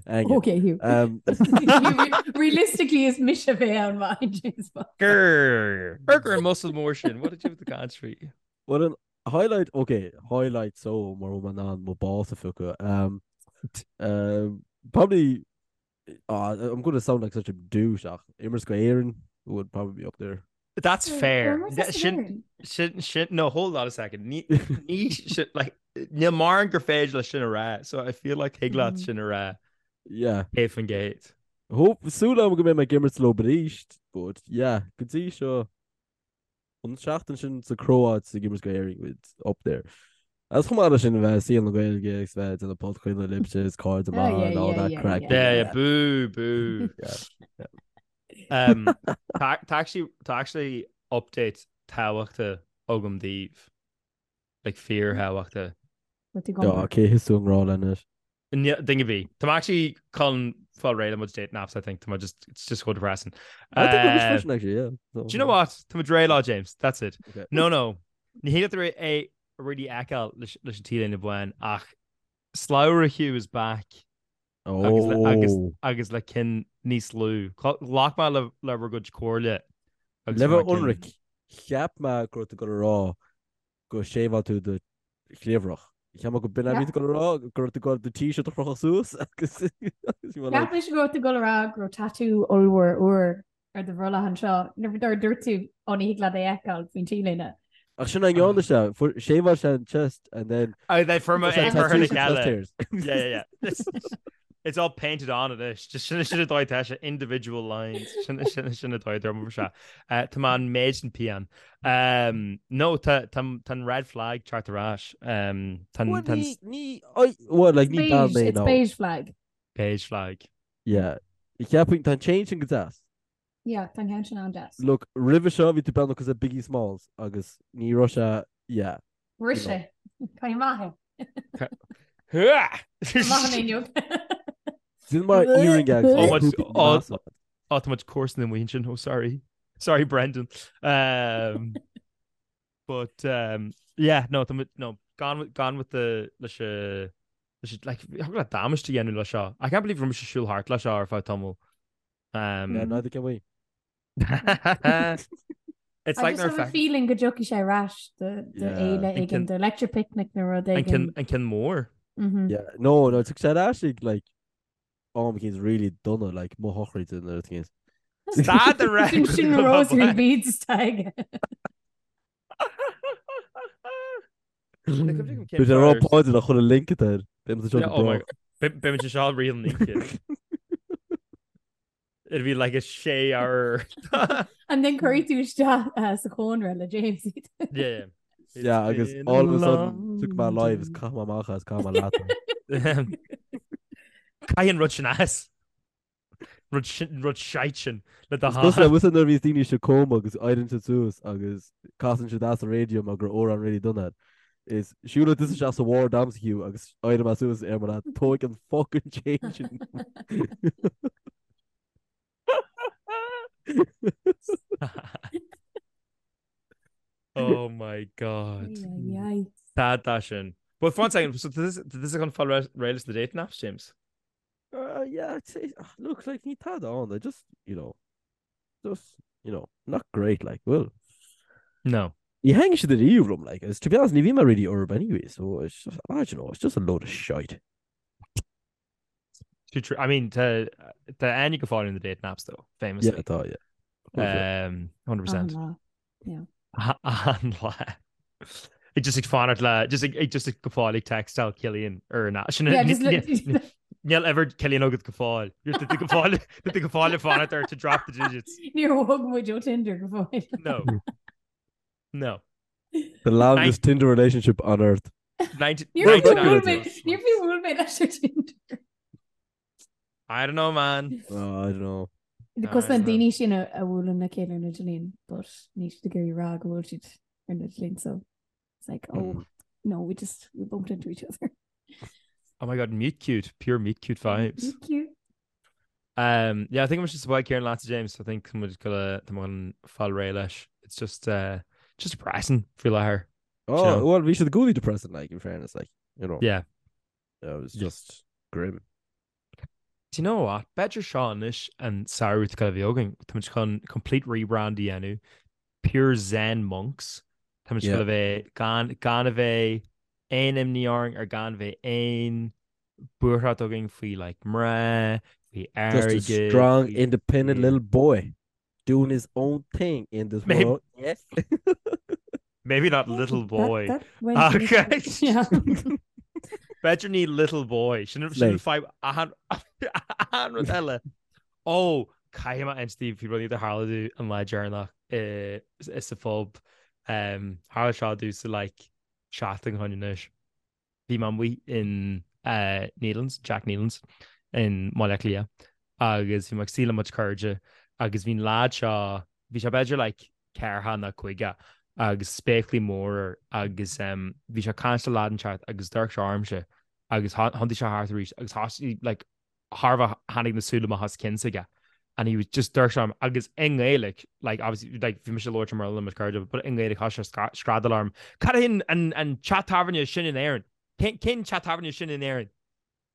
Aige. Okay, Hugh. Um, Realistically is mise a bheidh ann má théann James Bond. Grr. Burger and muscle mór sin. What did you with the country? Well, an highlight, okay, highlight so mar bhfuil mé in ann mo bás a phiocadh. Um, um, probably, uh, I'm going to sound like such a douche ach imirt go Éirinn would probably be up there. That's fair. Where was this Sin, in? sin, sin, no, hold on a second. Ní, ní, sin, like, níl mórán gur féidir le sin a rá, so I feel like thig leat sin a rá. Yeah. 100%. Hope, súil agam go mbeidh mé ag imirt leo arís, but yeah, go dtí seo an tseachtain sin sa Chróit ag imirt go Éirinn with up there. As chomh maith leis sin a bheith i saol na Gaeilge agus bheith ag déanamh podchraoladh libhse is cairde Oh, maith yeah, and all yeah, that yeah, craic. yeah. Yeah, yeah, boo, boo. Yeah. Um, tá tá actually tá actually update tábhachtach agam daoibh. Like fíorthábhachtach. What you Yeah, gone? cé thit tú i ngrá leis anois? Ní- Duine ar bith. Tá mé actually chun fáil réidh le mo dating apps, I think. Tá mé just, it's just so depressing. I think we're Uh, freisin actually, yeah. So, Do you know what? Tá muid réidh lá, James. That's it. Okay. No, no. Ní hé go é really fheiceáil leis leis an T-léine bhán ach Slabhra Hugh is back agus le, agus, Oh. agus le cinn níos lú. Ghlac mé le, le bhur gcuid comhairle agus Le bhí mé bheith cinn. ionraic, cheap mé go raibh tú ag dul a rá go seiveáil tú do chliabhrach. Cheap mé go b'in a bhí tú ag dul a rá, go raibh tú ag dul do t-shirt a chrochadh suas agus agus you were like, Cheap mise go raibh tú ag dul a rá go raibh tatú ollmhór úr ar do bhrollach anseo nuair a dúirt tú ó ní thig leat é a fheiceáil faoin t-léine. Ach sin an ndearna sé, fuair seiveáil sé an chest and then Oh, they fuair mé sé é curtha le tattoo chest chéile. hairs. Yeah, yeah, yeah. It's all painted on anois. Just sin sin an dóigh atá sé individual lines. Sin sin sin an dóigh a dúirt sé. Uh, Tá mé an méid sin pian. Um, no, tá tá tá an red flag teacht ar ais. Um, tá an Well, tá an ní ní I well like ní bean Beige, mé it's now. beige flag. beige flag. Yeah. Cheapfainn, tá an chain sin go deas. Yeah, tá an ceann sin an-deas. Look, roimhe seo bhí tú beagnach cosúil le Biggie Smalls agus ní raibh sé, yeah. Bhris sé. Caithfidh maith é. Maith an inniu. Sin mar earring agus Oh, much- oh, oh, tá muid comharsan amuigh ansin. Oh, sorry. Sorry, Brendan. Um, but, um, yeah, no, tá muid, no, gone with, gone with the, leis a, leis a, like, thug le damáiste a dhéanamh le seo. I can't believe raibh mise ag siúl thart le seo ar feadh tamaill. Um, Yeah, neither can we. It's I like just nuair have a fe- feeling go dtiocfaidh sé ar ais do do Yeah. fhéile An éigin, ceann- do Electric Picnic nó rud an ceann éigin. an ceann mór. Mhm. Yeah, no, no, tiocfaidh sé ar ais ag, like, am eicínt really dona, like, mo shochraid nó rud eicínt. Stad a rá Sin sin go rosary mbeadh- beads atá aige. Bhí sé rá Pádraig a chur a link air. Beidh muid anseo Yeah, go oh my brách. God. Beidh muid anseo rí an oíche. It'd be like a sé hour. And then cuirfidh tú isteach uh, sa chónra le James iad. Yeah. It's Yeah, agus been a all of a sudden took my long life is day. caithfidh mé amach as caithfidh mé leat. Caith an rud sin as. Rud sin rud shite sin le do Is cosúil le sháith. bhfuil nuair a bhíos daoine sa coma agus éiríonn siad suas agus casann siad as an raidió mar go raibh amhrán really dona air. Is siúlfaidh tusa isteach sa ward a'msa Hugh agus éireoidh mé suas ar mar tóig an fucking chain sin. Oh my God. Ay, ay, ay. Tá tá sin. But one second, so this this is chun fáil réidh leis na dating apps, James? Uh, yeah, I'd say, ah, look, like, ní tada ann, I just, you know, just, you know, not great, like, well. No. Ní thaitníonn siad ariamh liom, like, as to be honest, ní bhí mé really orthu anyway, so it's just, I don't know, it's just a load of shite. Too true. I mean, tá tá aithne go fóill in the dating apps though, famously. Yeah, tá, yeah. Of course, yeah. Um, 100%. An-lá. Yeah. An-lá. Ag just ag fanacht le, just ag, ag just ag go fóill ag textáil Cillian ar na. Sin Yeah, just look. Níl ever Cillian agat go fóill. You're the go fóill, the go fóill ag fanacht air to drop the digits. Níor bhog muid ó Tinder go fóill. No. No. The longest Tinder relationship on earth. 90, Níor Well, bhuail that mé, níor bhuail mé leis ar Tinder. I don't know, man. Oh, I don't know. Because I na don't know. daoine sin a a bhuaileann le chéile ar an idirlíon, but níl siad ag iarraidh rá go bhfuil siad ar an idirlíon, so it's like, oh, Mm. no, we just, we bumped into each other. Oh my God, meet cute, pure meet cute vibes. Meet cute. Um, yeah, I think I'm just about Kieran Lance James. I think I'm just gonna I'm gonna fáil réidh leis. It's just uh just depressing faoi láthair. Oh, know? well, bhí siad i gcónaí depressing, like, in fairness, like, you know. Yeah. It was Yeah. just grim. Do you know what? B'fhéidir seo anois an samhradh atá le bheith againn. Tá muid chun complete rebrand a dhéanamh. Pure Zen monks. Tá muid Yeah. chun a bheith gan gan a bheith aon imní orainn ar gan bheith aon buairt againn faoi like mná, faoi Just a airgead, strong, faoi independent yeah. little boy doing his own thing in this Maybe- world. Yes. Maybe not little That- boy. that went Okay. Yeah. B'fhéidir ní little boy. Sin sin Slay. fadhb achan achan rud eile. Ó, caithfidh mé insint daoibh faoi rudaí a tharla domh an lá deireanach i i sa phub. Um, tharla seo domh sa like seachtain ó shin anois. Bhí mé amuigh in uh, Nealon's, Jack Nealon's in mBaile Átha Cliath agus bhí mé ag suí le mo chuid cairde agus bhí an lad seo, bhí sé b'fhéidir like ceathracha nó caoga agus spéaclaí mór air agus um, bhí sé ag caint le lad inteacht agus d'amharc sé ormsa agus thiontaigh sé thart arís agus thosaigh like thairbhe tháinig na súile amach as a chionn s'aige and he was just d'amharc sé orm agus i nGaeilge like obviously like bhí mise ag labhairt i mBéarla le mo chuid cairde but i nGaeilge thosaigh sé screadaíl orm cad é an an an teach tábhairne sin in Éirinn? Cén cén teach tábhairne sin in Éirinn?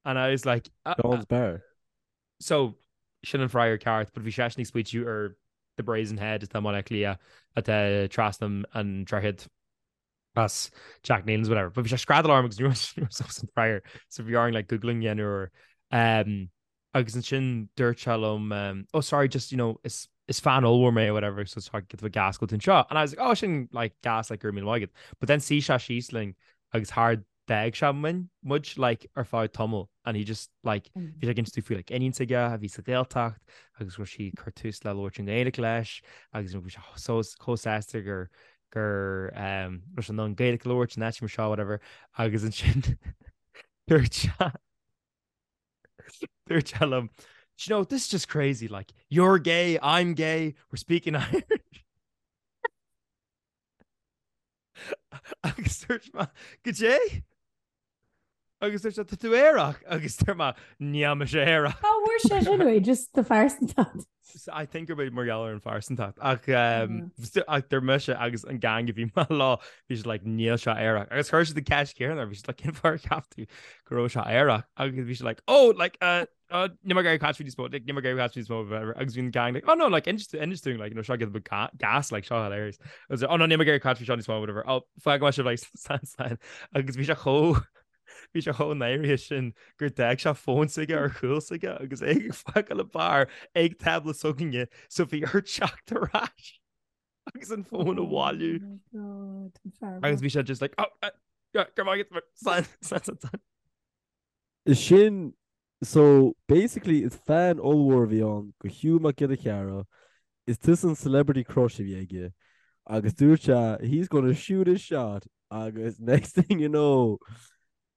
And I was like uh, Sean's Bar. So sin an freagra ceart but bhí seisean ag smaoitiú ar The Brazen Head atá i mBaile Átha Cliath atá trasna an droichead as Jack Nealon's whatever. But bhí sé screadaíl orm agus ní raibh an freagra so bhí orainn like googling a dhéanamh air. Um, agus ansin dúirt sé liom um, oh sorry just you know is is fan ollmhór mé or whatever so tá get gas go anseo and I was like oh sin like gas like go raibh míle maith agat but then shuigh sé síos linn agus thar d'fhág sé muinn muid like ar feadh tamaill and he just like bhí sé ag insint faoi like iníon s'aige a bhí sa Ghaeltacht agus go raibh sí ag cur tús le labhairt i nGaeilge leis agus bhí sé so chomh sásta gur gur um, raibh sé in ann Gaeilge a labhairt in áit mar seo whatever agus ansin dúirt sé dúirt sé liom. you know, this is just crazy, like, you're gay, I'm gay, we're speaking Irish. Agus dúirt mé, Goidé? Agus dúirt sé, Tá tú aerach. Agus dúirt mé, Níl mise aerach. Cá bhfuair sé sin uaidh? Just do phearsantacht. I think gurb é mar gheall ar an phearsantacht. Ach um, ach dúirt mise agus an gang a bhí mé leo, bhí siad like, níl sé aerach. Agus chuir siad an ceist chéanna air, bhí siad like, cén fáth ar cheap tú go raibh sé aerach? Agus bhí siad like, oh, like, uh, oh, níl mé ag iarraidh caint faoi níos mó, like, níl mé ag iarraidh caint faoi níos mó, whatever. Agus bhí an gang like, oh no, like, inis inis dúinn, like, you know, seo giota beag gas, like, seo hilarious. Agus oh no, níl mé ag iarraidh caint faoi seo níos mó, whatever. Oh, fágfaidh mé sibh, like, slán, slán. Agus bhí sé chomh, bhí sé chomh náirithe sin gur d'fhág sé fón s'aige ar chúl s'aige agus é ag fágáil an beár ag tábla s'againne, so bhí air teacht ar ais agus an fón a bhailiú. Oh my God, an fear Agus bhí sé just like, oh, uh, go raibh maith agat, slán, slán, slán, slán. Is sin, so basically is fan ollmhór a bhí ann go Hugh Mac Giolla Chearra, is tusa an celebrity crush a bhí aige agus dúirt sé he's gonna shoot his shot agus next thing you know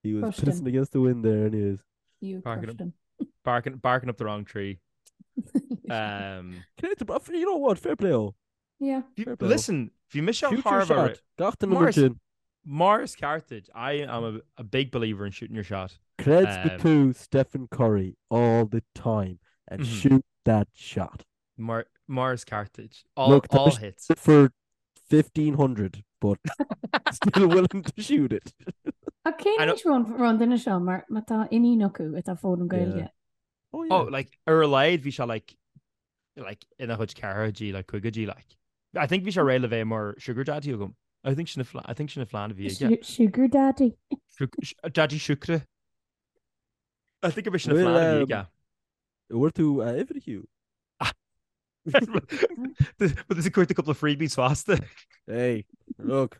he was Crushed him. pissing against the wind there anyways. You Barking crushed him. Barking, barking up the wrong tree. Um, Cé you know what, fair play ó. Yeah. Fair play. Listen, bhí mise Shoot your thar a shot. Gach duine mar Mar is- sin. Mar is ceart duit, I am a, a big believer in shooting your shot. Creid Um, go tú Stephen Curry all the time and Mhm. shoot that shot. Mar, mar is ceart duit. All, Look, tá all mise hits. For 1500, but still willing to shoot it. Ach cén I know- aois raibh an duine seo mar má tá iníon acu atá ag foghlaim Gaeilge. Oh, yeah. Oh, like, ar a laghad bhí sé like, like, ina chuid ceathrachaidí, like, caogaidí, like. I think bhí sé réidh le bheith mar sugar daddy agam. I think sin I think sin an phlean a bhí aige. Sugar daddy. Daddy siúcra. I think bhí sin an phlean a bhí aige. Bhfuair tú a uimhir Hugh? But there's a cuairt a couple of freebies fosta. Hey, look.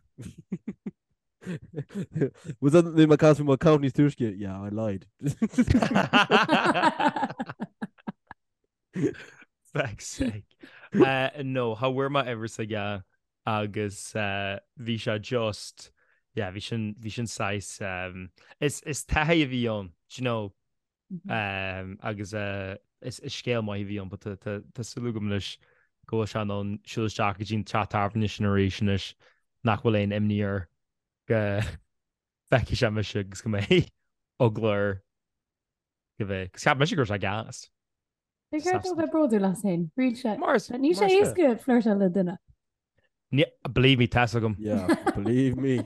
Was that the my from my company's túisce? Yeah, I lied. Feck's sake. Uh, no, cha bhfuair mé uimhir s'aige agus uh, bhí sé just yeah, bhí sin bhí sin saghas um, is is taithí a bhí ann, do you know, um, agus uh, is, is scéal maith a bhí ann, but tá tá tá súil agam anois go bhfuil sé in ann siúl isteach go dtí an teach tábhairne sin arís anois nach bhfuil aon imní air go bhfeicfidh sé mise agus go mbeidh eagla air go bheith. Cos cheap mise go raibh sé gas. Ba cheart dó bheith bródúil as féin. Thriail sé. Mar is Níl sé mar is éasca flirtáil le duine. Ní, believe me, tá's agam. Yeah, believe me.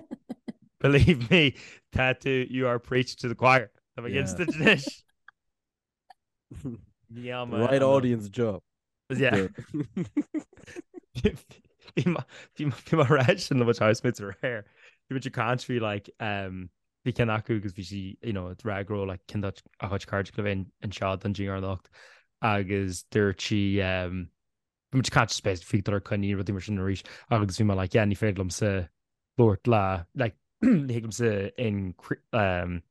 Believe me, tá tú, you are preaching to the choir. Tá mé Yeah. against it anois. Níl The mé right an- audience job. Yeah. Bhí mé bhí mé bhí mé ag rá sin le mo housemates aréir. Bhí muid ag caint faoi like um, bhí ceann acu agus bhí sí you know, ag rá go raibh like ceann dá a chuid cairde le bheith anseo don dinnéar anocht agus dúirt sí um, bhí muid ag caint space faoi dul ar coinní rudaí mar sin arís agus bhí mé like yeah ní féidir liomsa labhairt le like ní thig liomsa in um,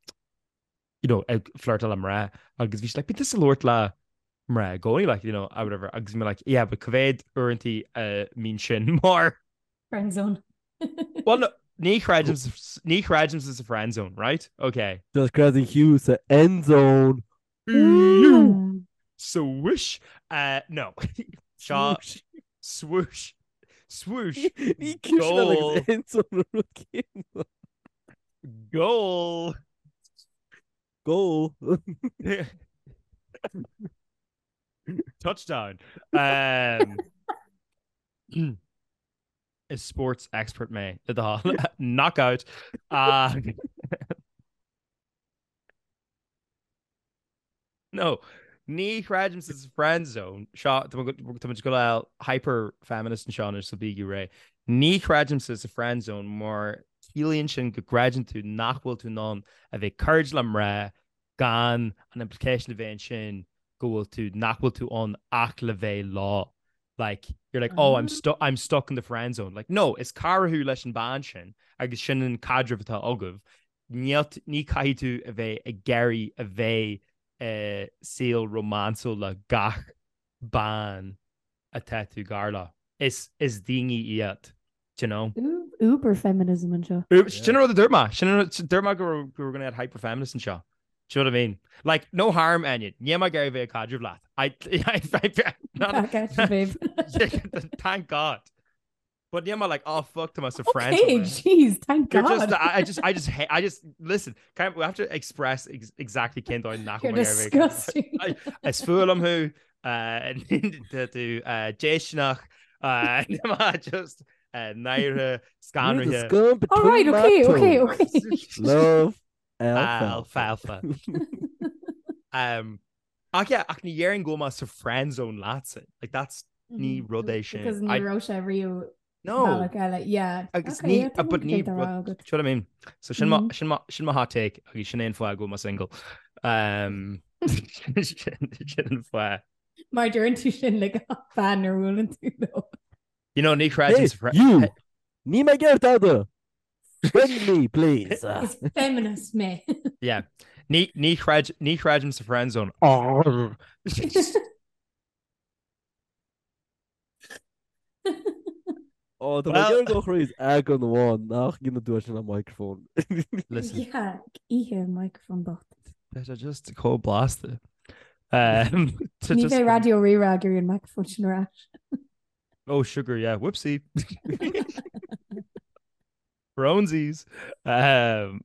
you know, ag flirtáil le mná agus bhí sí like, bíonn tusa ag labhairt le mná i gcónaí, like, you know, or whatever, agus bhí mé like, yeah, but cá mhéad uaireanta a mbíonn sin mar Friend zone. Well, no, ní chreidim sa- ní chreidimse sa friend zone, right? Okay. Just creideann Hugh sa end zone. Swish. Uh, no. Seo swoosh. Swoosh. Ní cúis Goal. end zone an rud céanna. Goal. Goal. Touchdown. Um, is sports expert mé le do thoil. Knockout. Uh, no, ní chreidimse sa friend zone. Seo tá muid ag dul hyper feminist anseo anois so bígí réidh. Ní chreidimse sa friend zone mar ciallaíonn sin go gcreideann tú nach bhfuil tú in ann a bheith cairdiúil le mná gan an implication a bheith ansin go bhfuil tú nach bhfuil tú ann ach le bheith leo. Like, you're like, oh, I'm, stu I'm stuck in the friend zone. Like, no, is cara thú leis an bean sin agus sin an caidreamh atá agaibh. Níl ní caithfidh tú a bheith ag iarraidh a bheith i saol rómánsúil le gach bean atá tú gar leo. Is is daoine iad, do you know? Uber feminism anseo. Sin an rud a dúirt mé. Sin an rud dúirt mé go raibh go raibh gonna get hyper feminist anseo. Do you know what I mean? Like, no harm, Enya. Níl mé ag iarraidh bheith ag caidreamh leat. I, I, I, Back at you, babe. Thank God. But níl mé like, oh fuck, tá mé sa friend Okay, jeez, thank You're God. just, I, I just, I just, I just, listen, can we have to express ex exactly cén dóigh nach You're bhfuil mé ag iarraidh bheith ag disgusting. I- Is fuath liom thú, uh, tá tú, uh, déistineach, uh, níl mé just, uh, náirithe, You're the scanraithe. scum All between right, my okay, okay, toes. okay. Love alfalfa. Alfalfa. Um, ach yeah, ach ní dhéarfainn go bhfuil mé sa friend zone leatsa. Like that's ní rud é sin. Because ní I- raibh sé riamh No. bealach eile. Yeah. Agus Okay, ní, yeah, uh, but ní tá rud, agat. do you know what I mean? So sin mo, Mhm. sin mo, sin mo hot take agus sin é an fáth go bhfuil mé single. Um, sin sin an fáth. Mar deireann tú sin le gach bean a bhuaileann tú leo. You know, ní chreidim Hey, sa fri- you! Níl mé ag iarraidh tada! Friend me, please. Is feminist mé. Yeah. Ní, ní chreid, ní chreidim sa friend zone. Ó, tá Well- mé go chríos eagrán amháin nach ndéanann tú sin an microphone. Listen. Yeah, oíche microphone bocht. Tá sé just chomh blasta. Um, to Ní just- bheidh Raidió Rí-Rá ag iarraidh an microphone sin ar ais. Oh, sugar, yeah. Whoopsie. Bronzies. Um,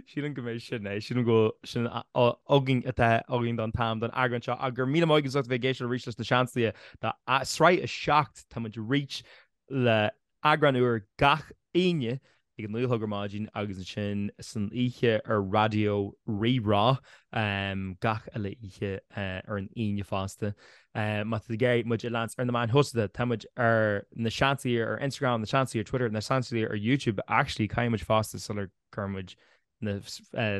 sílim go mbeidh sin é, sílim go bhfuil sin againn atá againn don t-am don eagrán seo ach go raibh míle maith agaibh as ucht a bheith ag éisteacht arís leis na Seansálaithe do sraith 7 tá muid arís le eagrán úr gach Aoine ag a 9 a chlog ar maidin agus ansin san oíche ar Raidió Rí-Rá gach uile oíche ar an Aoine fosta. Má tá tú ag iarraidh muid a leanstan ar na meáin shóisialta, tá muid ar Na Seansálaithe ar Instagram, Na Seansálaithe ar Twitter, Na Seansálaithe ar YouTube. Actually, caithfidh muid fosta sular gcuir muid na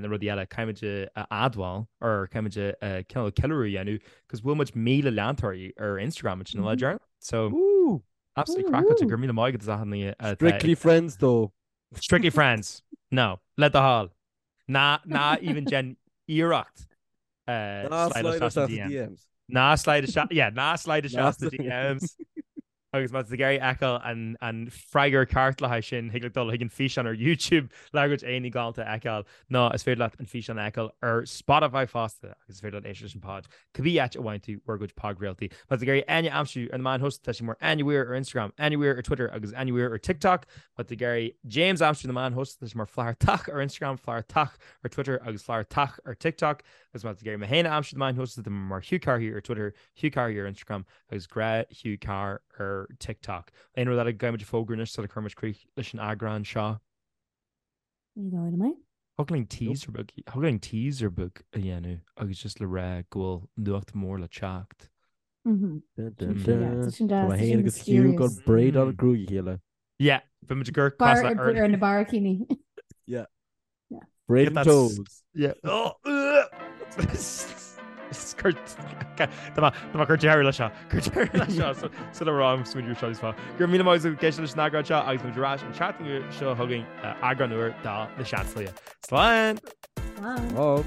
rudaí eile, caithfidh muid a admháil or caithfidh muid a cineál ceiliúradh a dhéanamh cos bhuail muid 1,000 leantóirí ar Instagram ansin an lá deireanach. So, Absolutely craiceáilte, go raibh míle maith agat as achan duine atá Strictly friends though. Strictly friends. No, le do thoil. Ná ná even déan iarracht Ná slide slide isteach isteach sna sa DMs. DMs. Ná slide isteach, yeah, ná slide Ná isteach sna slide. DMs. Agus má tá tú ag iarraidh fheiceáil an an freagra ceart le haghaidh sin, thig leat dul chuig an físeán ar YouTube le ár gcuid éadaí galánta a fheiceáil, nó is féidir leat an físeán a fheiceáil ar Spotify fosta agus is féidir leat éisteacht leis an pod Cibé áit a bhfaigheann tú bhur gcuid podchraoltaí. Má tá tú ag iarraidh Áine a aimsiú ar na meáin shóisialta, tá sí mar Áine Weir ar Instagram, Áine Weir ar Twitter agus Áine Weir ar TikTok. Má tá tú ag iarraidh James a aimsiú ar na meáin shóisialta, tá sé mar Flathartach ar Instagram, Flathartach ar Twitter agus Flathartach ar TikTok. Agus má tá tú ag iarraidh mé féin a aimsiú ar na meáin shóisialta, tá mé mar Hugh Carr ar Twitter, Hugh Carr ar Instagram agus Gnáth Hugh Carr ar TikTok. Aon rud eile go gcaithfidh muid a fhógra anois sula gcuireann muid críoch leis an eagrán seo? Ní dóigh liom é. Thig linn teaser beag, thig linn teaser beag a dhéanamh agus just le rá go bhfuil nuacht mór le teacht. Mhm. Dun, dun, Yeah, dun. tá sin Tá deas, mé tá féin sin agus Hugh ag mysterious. braidáil gruaig a chéile. Yeah, bhí muid ag cur Bar cos le ar na barraicíní. Yeah. Yeah. Braiding Get that toes. Yeah. Oh, Tá mé ag cur deireadh leis seo. Cur deireadh leis seo sula raibh smaoineamh seo níos fá. Go raibh míle maith agat ag éisteacht leis an eagrán seo agus muid ar ais an tseachtain seo chugainn eagrán úr de Na Seansálaithe. Slán! Slán! Slán!